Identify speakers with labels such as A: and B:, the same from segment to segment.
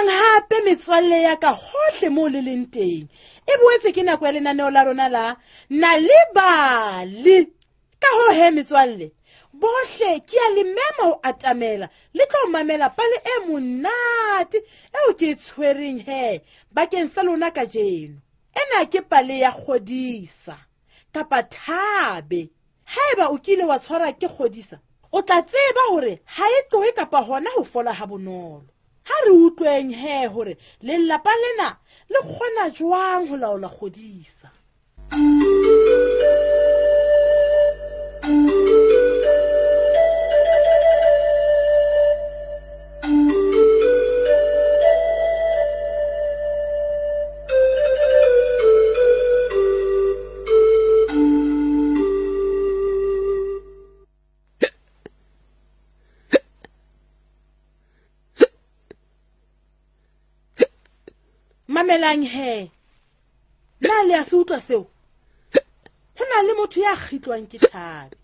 A: Dumelang hape metswalle ya ka hohle moo le leng teng. E boetse ke nako ya lenaneo la rona la Nal'ibali. Ka hoo he metswalle, bohle ke a le mema ho atamela le tlo mamela pale e monate eo ke e tshwereng he bakeng sa lona kajeno. Ena ke pale ya kgodisa kapa thabe. Haeba o kile wa tshwarwa ke kgodisa, o tla tseba hore ha e tlohe kapa hona ho fola ha bonolo. Ha re utlweng he hore lelapa lena le kgona jwang ho laola kgodisa. Mamelang he, na le a se utlwa seo? Ho na le motho ya kgitlwang ke thabe.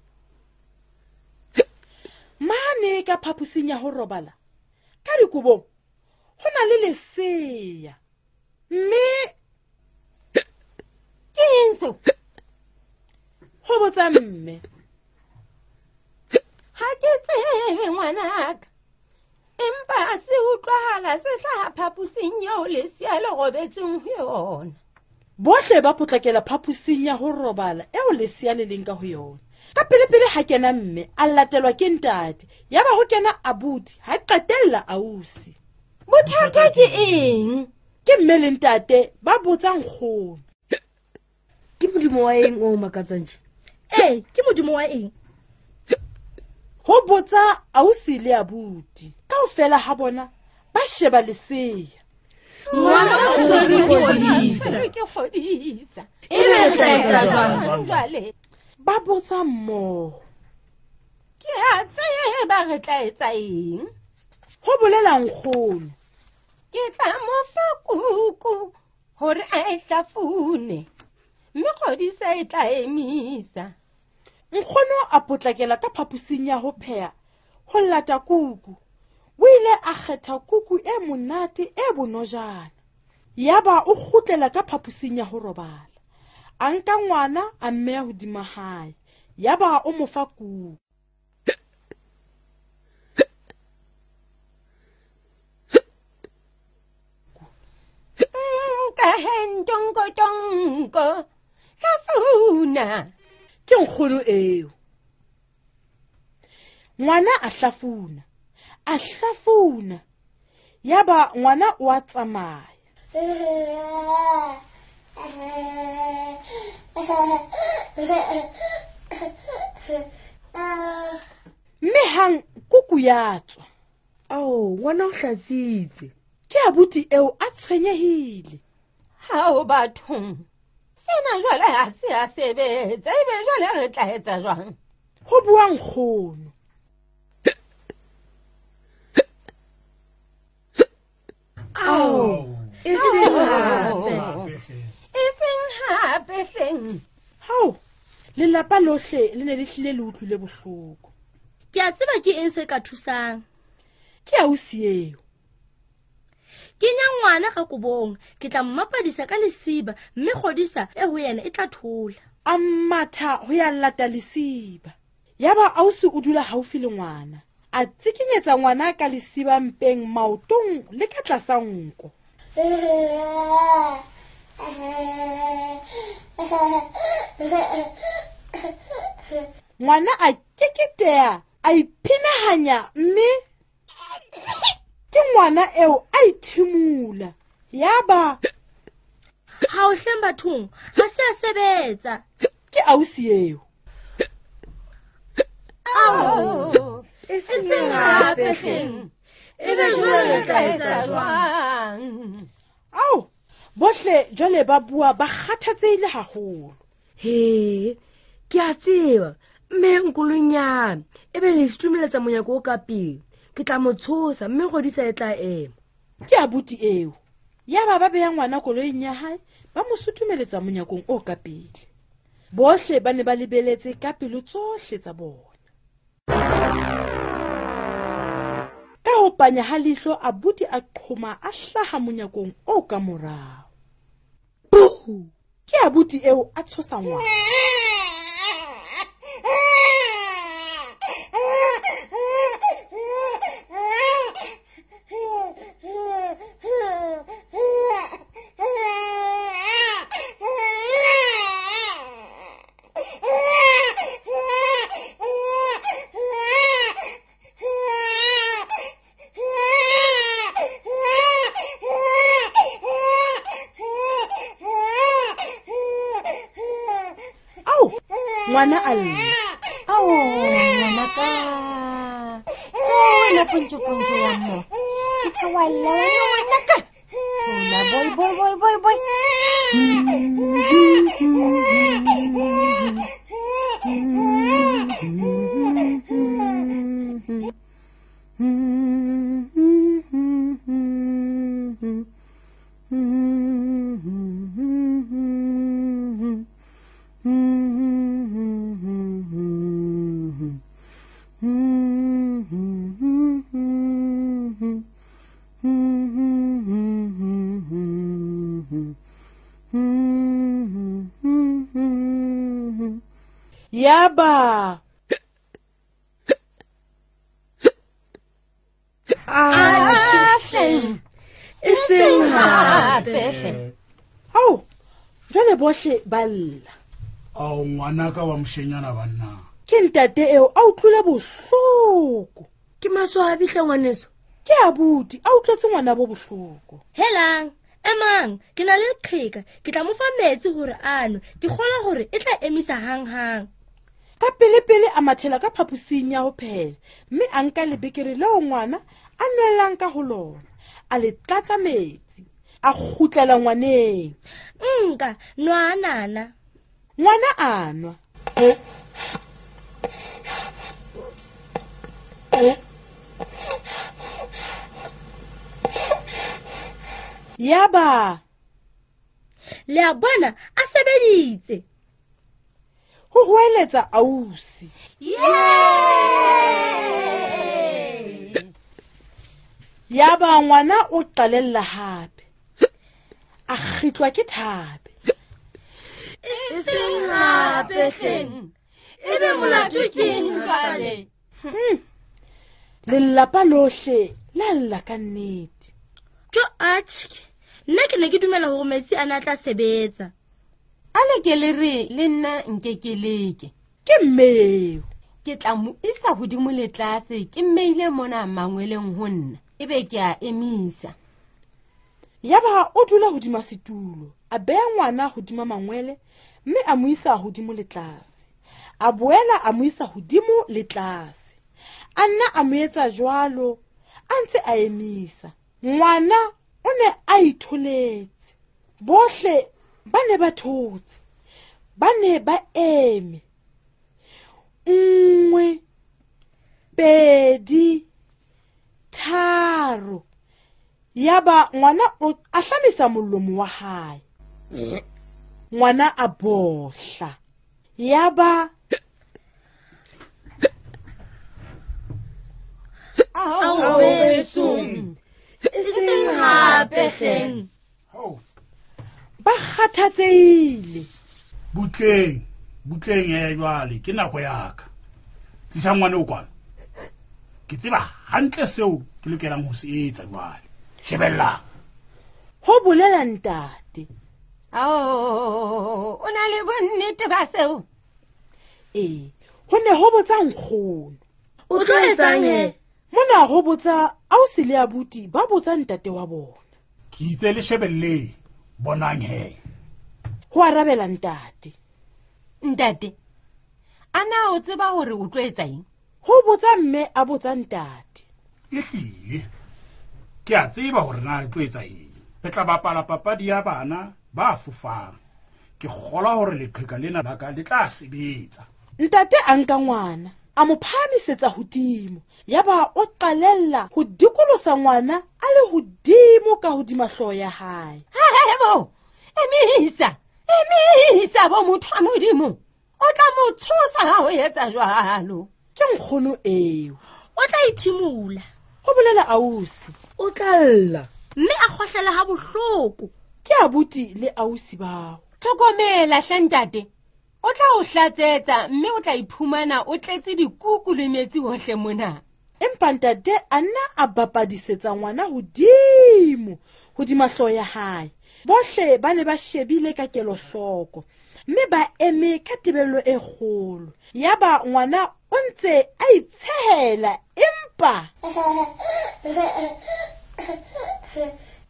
A: Mane ka phaposing ya ho robala, ka dikobong, ho na le lesea. Mme
B: ke eng seo?
A: Ho botsa mme.
B: Ha ke tsebe ngwanaka. Empa se utlwahala se hlaha phaposing eo lesea le robetseng ho yona.
A: Bohle ba potlakela phaposing ya ho robala eo lesea le leng ka ho yona. Ka pelepele ha kena mme, a latelwa ke ntate. Yaba ho kena abuti, ha qetella ausi.
B: Bothata ke eng?
A: Ke mme le ntate ba botsa nkgono.
C: Ke modimo wa eng o makatsang tje?
D: Ee, ke modimo wa eng?
A: Ho botsa ausi le abuti. Kaofela ha bona ba sheba lesea.
C: Ngwana o tshwerwe ke kgodisa.
B: Ke kgodisa.
C: E be re tla etsa jwang?
B: Jwale.
A: Ba botsa mmoho.
B: Ke a tseba re tla etsa eng?
A: Ho bolela nkgono.
B: Ke tla mo fa kuku hore a e hlafune, mme kgodisa e tla emisa.
A: Nkgono a potlakela ka phaposing ya ho pheha ho lata kuku. O ile a kgetha kuku e monate e bonojana. Yaba o kgutlela ka phaposing ya ho robala. A nka ngwana a mmeya hodima hae. Yaba o mo fa kuku.
B: Nka he ntonko tonko. Hlafuna.
A: Ke nkgono eo. Ngwana a hlafuna. A hlafuna. Yaba ngwana o a tsamaya. Mme hang kuku ya tswa.
C: Ao, ngwana o hlatsitse.
A: Ke abuti eo a tshwenyehile.
B: Hao bathong. Sena jwale ha se a sebetsa, ebe jwale re tla etsa jwang?
A: Ho bua nkgono.
C: Ao, e seng hape.
B: E seng hape hleng.
A: Hao, lelapa lohle le ne le hlile le utlwile bohloko.
D: Ke a tseba ke eng se ka thusang.
A: Ke ausi eo.
D: Kenya ngwana ka kobong, ke tla mmapadisa ka lesiba, mme kgodisa e ho yena e tla thola.
A: A matha ho ya lata lesiba. Yaba ausi o dula haufi le ngwana. A tsikinyetsa ngwana ka lesiba mpeng, maotong le ka tlasa nko. Ngwana a keketeha, a iphinahanya mme ke ngwana eo a ithimula. Yaba
D: ha o hleng bathong, ha se a sebetsa.
A: Ke ausi eo.
B: Ao,
C: e
B: seng hape hleng. Ebe jwale re tla etsa jwang?
A: Ao, bohle jwale ba bua ba kgathatsehile haholo.
C: He, ke a tseba, mme nkolonyana, ebe le sutumeletsa monyako o ka pele. Ke tla mo tshosa mme kgodisa e tla ema.
A: Ke abuti eo. Yaba ba beya ngwana koloing ya hae, ba mo sutumeletsa monyakong o ka pele. Bohle ba ne ba lebeletse ka pelo tsohle tsa bona. Ka ho panya ha leihlo abuti a qhoma a hlaha monyakong o ka morao. Buh! Ke abuti eo a tshosa ngwana. Ao, ngwana a lla.
B: Ao, ngwanaka. Wena pontsho pontsho ya mo. Ke tla wa lla wena ngwanaka. Hola boy boy boy boy boy.
A: Yaba
B: Ahle.
D: E seng hape.
B: Hape hle.
A: Ao, jwale bohle ba lla.
E: Ao, ngwanaka wa moshenyana banna.
A: Ke ntate eo a utlwile bohloko.
C: Ke maswabi hle ngwaneso.
A: Ke abuti a utlwetse ngwana bo bohloko.
D: Helang, emang, ke na le leqheka, ke tla mo fa metsi hore a nwe. Ke kgolwa hore e tla emisa hanghang.
A: Ka pele-pele a mathela ka phaposing ya ho phehela, mme a nka lebekere leo ngwana a nwellang ka ho lona, a le tlatsa metsi, a kgutlela ngwaneng.
D: Nka, nwa nana.
A: Ngwana a nwa. Yaba
D: Le a bona a sebeditse.
A: ho hoeletsa ausi. Yaba ngwana o qalella hape. A kgitlwa ke thape.
D: E seng hape hleng. Ebe molato ke eng jwale?
A: Lelapa lohle la lla ka nnete.
D: Jo atjhe, nna ke ne ke dumela hore metsi a na tla sebetsa.
B: A le ke le re le nna nke ke leke.
A: Ke mmeo.
B: Ke tla mo isa hodimo le tlase, ke mmeile mona mangweleng ho nna, ebe ke a emisa.
A: Yaba o dula hodima setulo, a beha ngwana hodima mangwele mme a mo isa hodimo le tlase. A boela a mo isa hodimo le tlase. A nna a mo etsa jwalo, a ntse a emisa. Ngwana o ne a itholetse. Bohle ba ne ba thotse. Ba ne ba eme. 1 2 3. Yaba ngwana o ahlamisa molomo wa hae. Ngwana a bohla. Yaba
D: Ao besong. E seng hape hleng.
E: Ao,
A: ba kgathatsehile.
E: Butleng, butleng ya jwale ke nako ya ka. Tlisa ngwana o kwano. Ke tseba hantle seo ke lokelang ho se etsa jwale. Shebellang.
A: Ho bolela ntate.
B: Ao, o na le bonnete ba seo?
A: Ee, ho ne ho botsa nkgono.
D: O tlo etsang he?
A: Mona ho botsa ausi le abuti ba botsa ntate wa bona.
E: Ke itse le shebelleng, bonang he.
A: Ho arabela ntate.
B: Ntate, a na o tseba hore o tlo etsa eng?
A: Ho botsa mme a botsa ntate.
E: Ehlile, ke a tseba hore na re tlo etsa eng. Re tla bapala papadi ya bana ba fofang. Ke kgolwa hore leqheka lena la ka le tla sebetsa.
A: Ntate a nka ngwana, a mo phahamisetsa hodimo. Yaba o qalella ho dikolosa ngwana a le hodimo ka hodima hlooho ya hae.
B: Hebo, emisa, emisa bo motho wa Modimo. O tla mo tshosa ha o etsa jwalo.
A: Ke nkgono eo.
D: O tla ithimola.
A: Ho bolela ausi.
C: O tla lla.
D: Mme a kgohlela ha bohloko.
A: Ke abuti le ausi bao.
B: Tlhokomela hle ntate. O tla o hlatsetsa mme o tla iphumana o tletse dikuku le metsi hohle mona.
A: Empa ntate a nna a bapadisetsa ngwana hodimo hodima hlooho ya hae. Bohle ba ne ba shebile ka kelohloko mme ba eme ka tebello e kgolo. Yaba ngwana o ntse a itshehela empa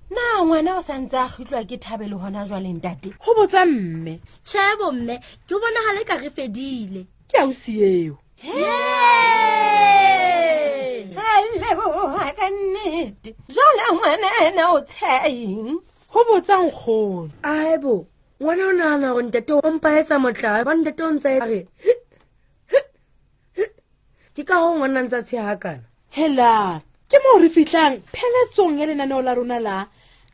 B: Na ngwana o sa ntse a kgitlwa ke Thabelo hona jwale ntate?
A: Ho botsa mme.
D: Tjhe bo mme, ke bonahala eka re fedile.
A: Ke ausi eo.
B: Ra leboha ka nnete. Jwale ngwana ena o tsheha eng?
A: Ho botsa nkgono.
C: Aebo, ngwana o nahana hore ntate o mpa etsa motlae, ba ntate o ntse a re ke ka hoo ngwana a ntse a tsheha hakana.
A: Hela, ke moo re fihlang pheletsong ya lenaneo la rona la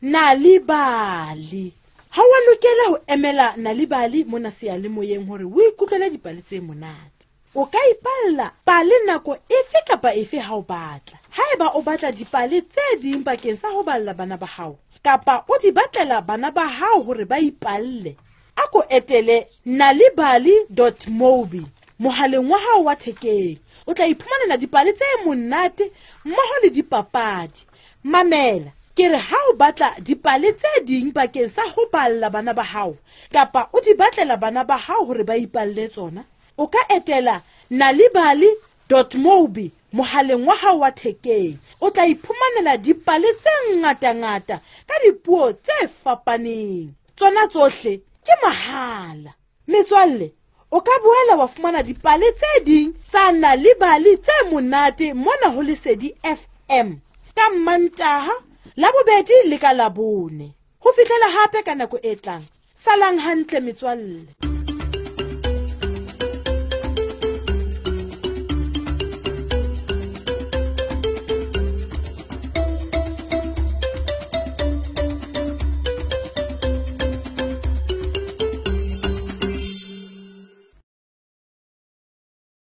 A: Nal'ibali. Ha wa lokela ho emela Nal'ibali mona seyalemoyeng hore o ikutlwele dipale tse monate. O ka ipalla pale nako efe kapa efe ha o batla. Haeba o batla dipale tse ding bakeng sa ho balla bana ba hao, kapa o di batlela bana ba hao hore ba ipalle, a ko etele nalibali dot mobi mohaleng wa hao wa thekeng. O tla iphumanela dipale tse monate mmoho le dipapadi. Mamela, ke re ha o batla dipale tse ding bakeng sa ho balla bana ba hao, kapa o di batlela bana ba hao hore ba ipalle tsona, o ka etela nalibali dot mobi mohaleng wa hao wa thekeng. O tla iphumanela dipale tse ngatangata ka dipuo tse fapaneng. Tsona tsohle ke mahala. Metswalle, o ka boela wa fumana dipale tse ding tsa Nal'ibali tse monate mona ho Lesedi FM ka Mmantaha, Labobedi le ka Labone. Ho fihlela hape ka nako e tlang. Salang hantle metswalle.